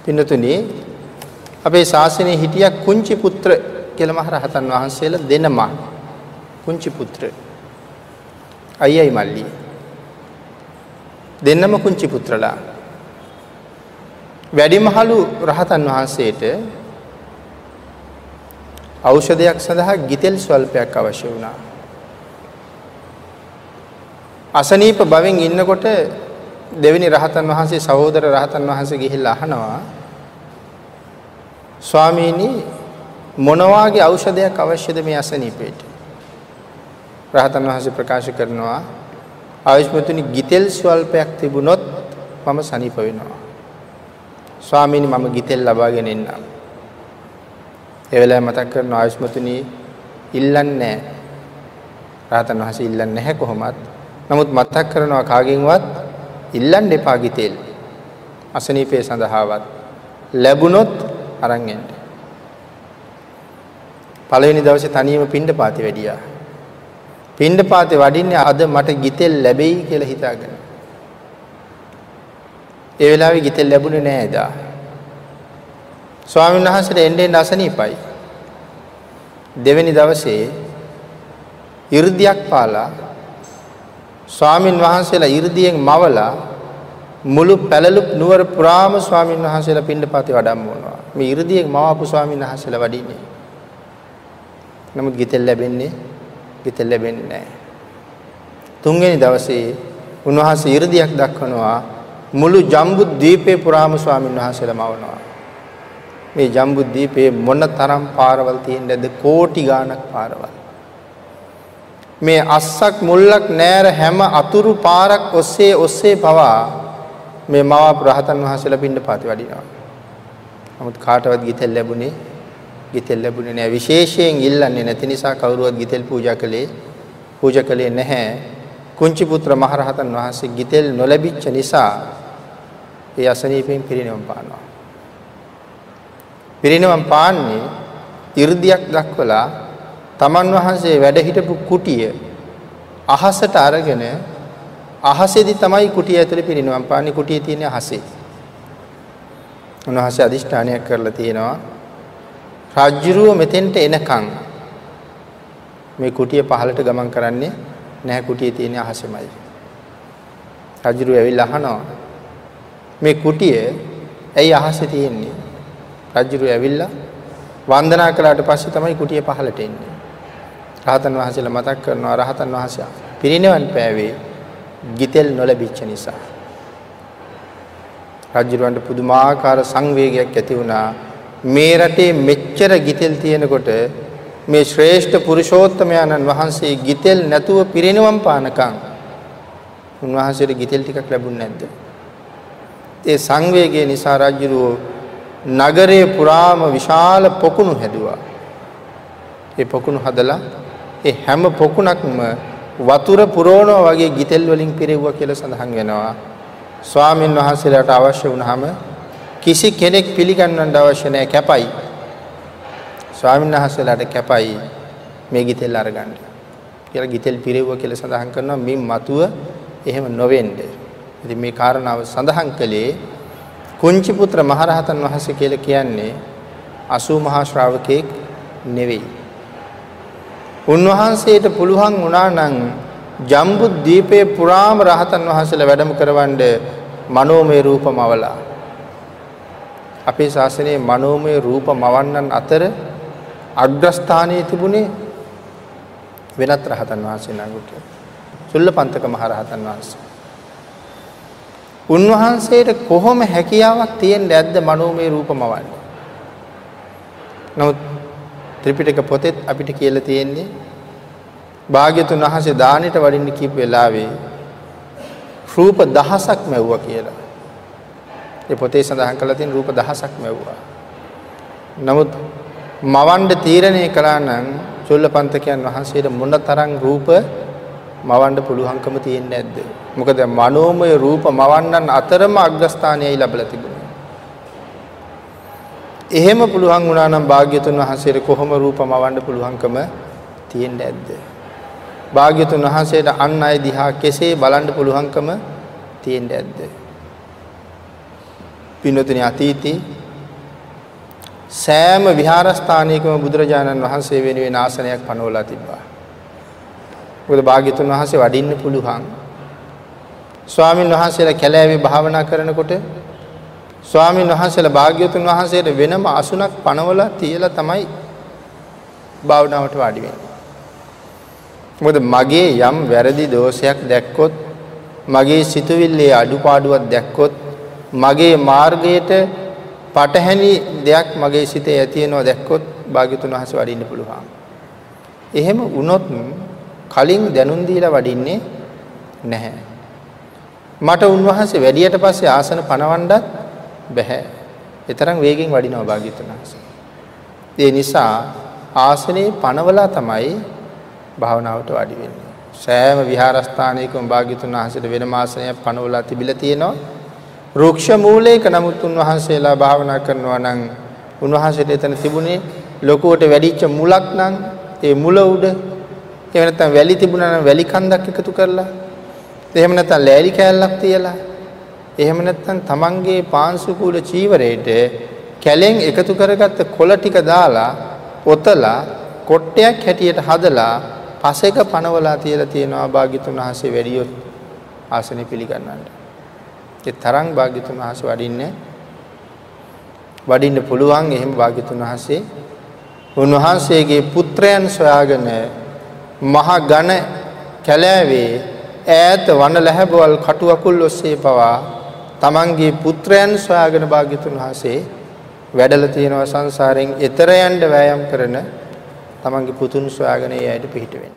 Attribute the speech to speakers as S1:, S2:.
S1: පින්නතුනි අපේ ශාසනයේ හිටියා කුංචි පුත්‍ර කියලා මහ රහතන් වහන්සේලා දෙනම. කුංචි පුත්‍ර අයියයි මල්ලි දෙන්නම කුංචි පුත්‍රලා. වැඩිමහලු රහතන් වහන්සේට ඖෂධයක් සඳහා ගිතෙල් ස්වල්පයක් අවශ්‍ය වුණා. අසනීප භවෙන් ඉන්නකොට දෙවෙනි රහතන් වහන්සේ සහෝදර රහතන් වහන්සේ ගිහිල්ලා අහනවා, ස්වාමීනි මොන වාගේ ඖෂධයක් අවශ්‍යද මේ අසනීපයට? රහතන් වහන්සේ ප්‍රකාශ කරනවා, ආයුෂ්මතුනි ගිතෙල් ස්වල්පයක් තිබුණොත් මම සනීප වෙනවා. ස්වාමීනි මම ගිතෙල් ලබාගෙන එන්නම්. ඒ වෙලාවේ මතක් කරනවා, ආයුෂ්මතුනි ඉල්ලන්නේ නැහැ. රහතන් වහන්සේ ඉල්ලන්නේ නැහැ කොහොමත්. නමුත් මතක් කරනවා කාගෙන්වත් ඉල්ලන්න එපා ගිතෙල්. අසනීපය සඳහාවත් ලැබුණොත් අරන් එන්න. පළවෙනි දවසේ තනියම පිණ්ඩපාතේ වැඩියා. පිණ්ඩපාතේ වඩින්නේ අද මට ගිතෙල් ලැබෙයි කියලා හිතාගෙන. ඒ වෙලාවේ ගිතෙල් ලැබුණේ නෑ එදා. ස්වාමීන් වහන්සේට එන්න එන්න අසනීපයි. දෙවෙනි දවසේ 이르දියක් පාලා ස්වාමින් වහන්සේලා 이르දියෙන් මවලා මුළු පැලලු නුවර පුරාම ස්වාමින් වහන්සේලා පිණ්ඩපාතේ වඩම්මවනවා. මේ 이르දියෙන් මවපු ස්වාමින් වහන්සේලා වඩින්නේ. නමුත් ගිතෙල් ලැබෙන්නේ නැහැ. තුන්වෙනි දවසේ උන්වහන්සේ 이르දියක් දක්වනවා. මුළු ජම්බුද්වීපේ පුරාම ස්වාමින් වහන්සේලා මවනවා. මේ ජම්බුද්වීපේ මොන තරම් පාරවල් තියෙන්නද? කෝටි ගාණක් පාරවල්. මේ අස්සක් මුල්ලක් නෑර හැම අතුරු පාරක් ඔස්සේ ඔස්සේ පවා මේ මවාපු රහතන් වහන්සේලා පිණ්ඩපාතේ වඩිනවා. නමුත් කාටවත් ගිතෙල් ලැබුණේ නෑ. විශේෂයෙන් ඉල්ලන්නේ නැති නිසා කවුරුවත් ගිතෙල් පූජා කළේ නැහැ. කුංචි පුත්‍ර මහරහතන් වහන්සේ ගිතෙල් නොලැබිච්ච නිසා ඒ අසනීපයෙන් පිරිනිවන් පානවා. පිරිනිවන් පාන්නේ 이르දියක් දක්වලා තමන් වහන්සේ වැඩ හිටපු කුටිය අහසට අරගෙන අහසේදී තමයි කුටිය ඇතුලේ පිරිනිවන් පාන්නේ. කුටිය තියෙන්නේ අහසේ. උන්වහන්සේ අදිෂ්ඨානයක් කරලා තියෙනවා, රාජ්‍යරුව මෙතෙන්ට එනකන් මේ කුටිය පහළට ගමන් කරන්නේ නැහැ. කුටිය තියෙන්නේ අහසෙමයි. රාජ්‍යරුව ඇවිල්ලා අහනවා, මේ කුටිය ඇයි අහසේ තියෙන්නේ? රාජ්‍යරුව ඇවිල්ලා වන්දනා කළාට පස්සේ තමයි කුටිය පහළට එන්නේ. රහතන් වහන්සේලා මතක් කරනවා, රහතන් වහන්සේ පිරිනිවන් පෑවේ ගිතෙල් නොලැබිච්ච නිසා. රජුරවන්ට පුදුමාකාර සංවේගයක් ඇති වුණා. මේ රටේ මෙච්චර ගිතෙල් තියෙනකොට මේ ශ්‍රේෂ්ඨ පුරුෂෝත්තමයන්න් වහන්සේ ගිතෙල් නැතුව පිරිනිවන් පානකම් උන්වහන්සේට ගිතෙල් ටිකක් ලැබුණ නැද්ද? ඒ සංවේගය නිසා රජුරෝ නගරයේ පුරාම විශාල පොකුණු හැදුවා. ඒ පොකුණු හදලා ඒ හැම පොකුණක්ම වතුර පුරවනවා වගේ ගිතෙල් වලින් පිරෙව්වා කියලා සඳහන් වෙනවා. ස්වාමින් වහන්සේලාට අවශ්‍ය වුණාම කිසි කෙනෙක් පිළිගන්නන්න අවශ්‍ය නැහැ, කැපයි. ස්වාමින් වහන්සේලාට කැපයි මේ ගිතෙල් අරගන්න කියලා ගිතෙල් පිරෙව්වා කියලා සඳහන් කරනවා. මේ මතුව එහෙම නොවෙන්න. ඉතින් මේ කාරණාව සඳහන් කළේ කුංචි පුත්‍ර මහරහතන් වහන්සේ කියලා කියන්නේ 80 මහා ශ්‍රාවකෙක් නෙවෙයි. උන්වහන්සේට පුළුවන් වුණා නම් ජම්බුද්වීපයේ පුරාම රහතන් වහන්සේලා වැඩම කරවන්න මනෝමය රූප මවලා. අපේ ශාසනයේ මනෝමය රූප මවන්නන් අතර අග්‍රස්ථානයේ තිබුණේ වෙනත් රහතන් වහන්සේ නමකට, චුල්ලපන්තක මහ රහතන් වහන්සේ. උන්වහන්සේට කොහොම හැකියාවක් තියෙන්න ඇද්ද මනෝමය රූප මවන්න? නමුත් ත්‍රිපිටක පොතෙත් අපිට කියලා තියෙන්නේ භාග්‍යතුන් වහන්සේ දානෙට වඩින්න කියපු වෙලාවේ රූප දහසක් මැව්වා කියලා. ඒ පොතේ සඳහන් කරලා තියෙන රූප දහසක් මැව්වා. නමුත් මවන්න තීරණය කළා නම් චුල්ලපන්තකයන් වහන්සේට මොන තරම් රූප මවන්න පුළුවන්කම තියෙන්නේ නැද්ද? මොකද මනෝමය රූප මවන්නන් අතරම අග්‍රස්ථානයයි ලැබලා තිබුණේ. එහෙම පුළුවන් වුණා නම් භාග්‍යතුන් වහන්සේට කොහොම රූප මවන්න පුළුවන්කම තියෙන්නේ නැද්ද? භාග්‍යතුන් වහන්සේට අන් අය දිහා කෙසේ බලන්න පුළුවන්කම තියෙන්නේ නැද්ද? පින්වතුනි, අතීතේ සෑම විහාරස්ථානයකම බුදුරජාණන් වහන්සේ වෙනුවෙන් ආසනයක් පනවලා තිබ්බා. මොකද භාග්‍යතුන් වහන්සේ වඩින්න පුළුවන්. ස්වාමින් වහන්සේලා කැලෑවේ භාවනා කරනකොට ස්වාමින් වහන්සේලා භාග්‍යතුන් වහන්සේට වෙනම අසුනක් පනවලා තියලා තමයි භාවනාවට වාඩි වෙන්නේ. මොකද මගේ යම් වැරදි දෝෂයක් දැක්කොත්, මගේ සිතුවිල්ලේ අඩුපාඩුවක් දැක්කොත්, මගේ මාර්ගයට පටහැනි දෙයක් මගේ සිතේ ඇති වෙනවා දැක්කොත් භාග්‍යතුන් වහන්සේ වඩින්න පුළුවන්. එහෙම වුණොත් කලින් දැනුම් දීලා වඩින්නේ නැහැ. මට උන්වහන්සේ වැඩියට පස්සේ ආසන පනවන්නත් බැහැ. ඒ තරම් වේගෙන් වඩිනවා භාග්‍යතුන් වහන්සේ. ඒ නිසා ආසනේ පනවලා තමයි භාවනාවට වාඩි වෙන්නේ. සෑම විහාරස්ථානයකම භාග්‍යතුන් වහන්සේට වෙනම ආසනයක් පනවලා තිබිලා තියෙනවා. වෘක්ෂ මූලයක නමුත් උන්වහන්සේලා භාවනා කරනවා නම් උන්වහන්සේට එතන තිබුණේ ලොකුවට වැඩිච්ච මුලක් නම් ඒ මුල උඩ, එහෙම නැත්නම් වැලි තිබුණා නම් වැලි කන්දක් එකතු කරලා, එහෙම නැත්නම් ලෑලි කෑල්ලක් තියලා, එහෙම නැත්නම් තමන්ගේ පාංශුකූල චීවරයට කැලෙන් එකතු කරගත්ත කොළ ටික දාලා ඔතලා කොට්ටයක් හැටියට හදලා පසෙක පනවලා තියලා තියෙනවා භාග්‍යතුන් වහන්සේ වැඩියොත් ආසනෙ පිළිගන්නන්න. ඒ තරම් භාග්‍යතුන් වහන්සේ වඩින්න පුළුවන්. එහෙම භාග්‍යතුන් වහන්සේ උන්වහන්සේගේ පුත්‍රයන් සොයාගෙන මහ ඝන කැලෑවේ ඈත වන ලැහැබවල් කටු අකුල් ඔස්සේ පවා තමන්ගේ පුත්‍රයන් සොයාගෙන භාග්‍යතුන් වහන්සේ වැඩලා තියෙනවා. සංසාරයෙන් එතර යන්න වෑයම් කරන තමන්ගේ පුතුන් සොයාගෙන ඒ අයට පිහිට වෙන්න.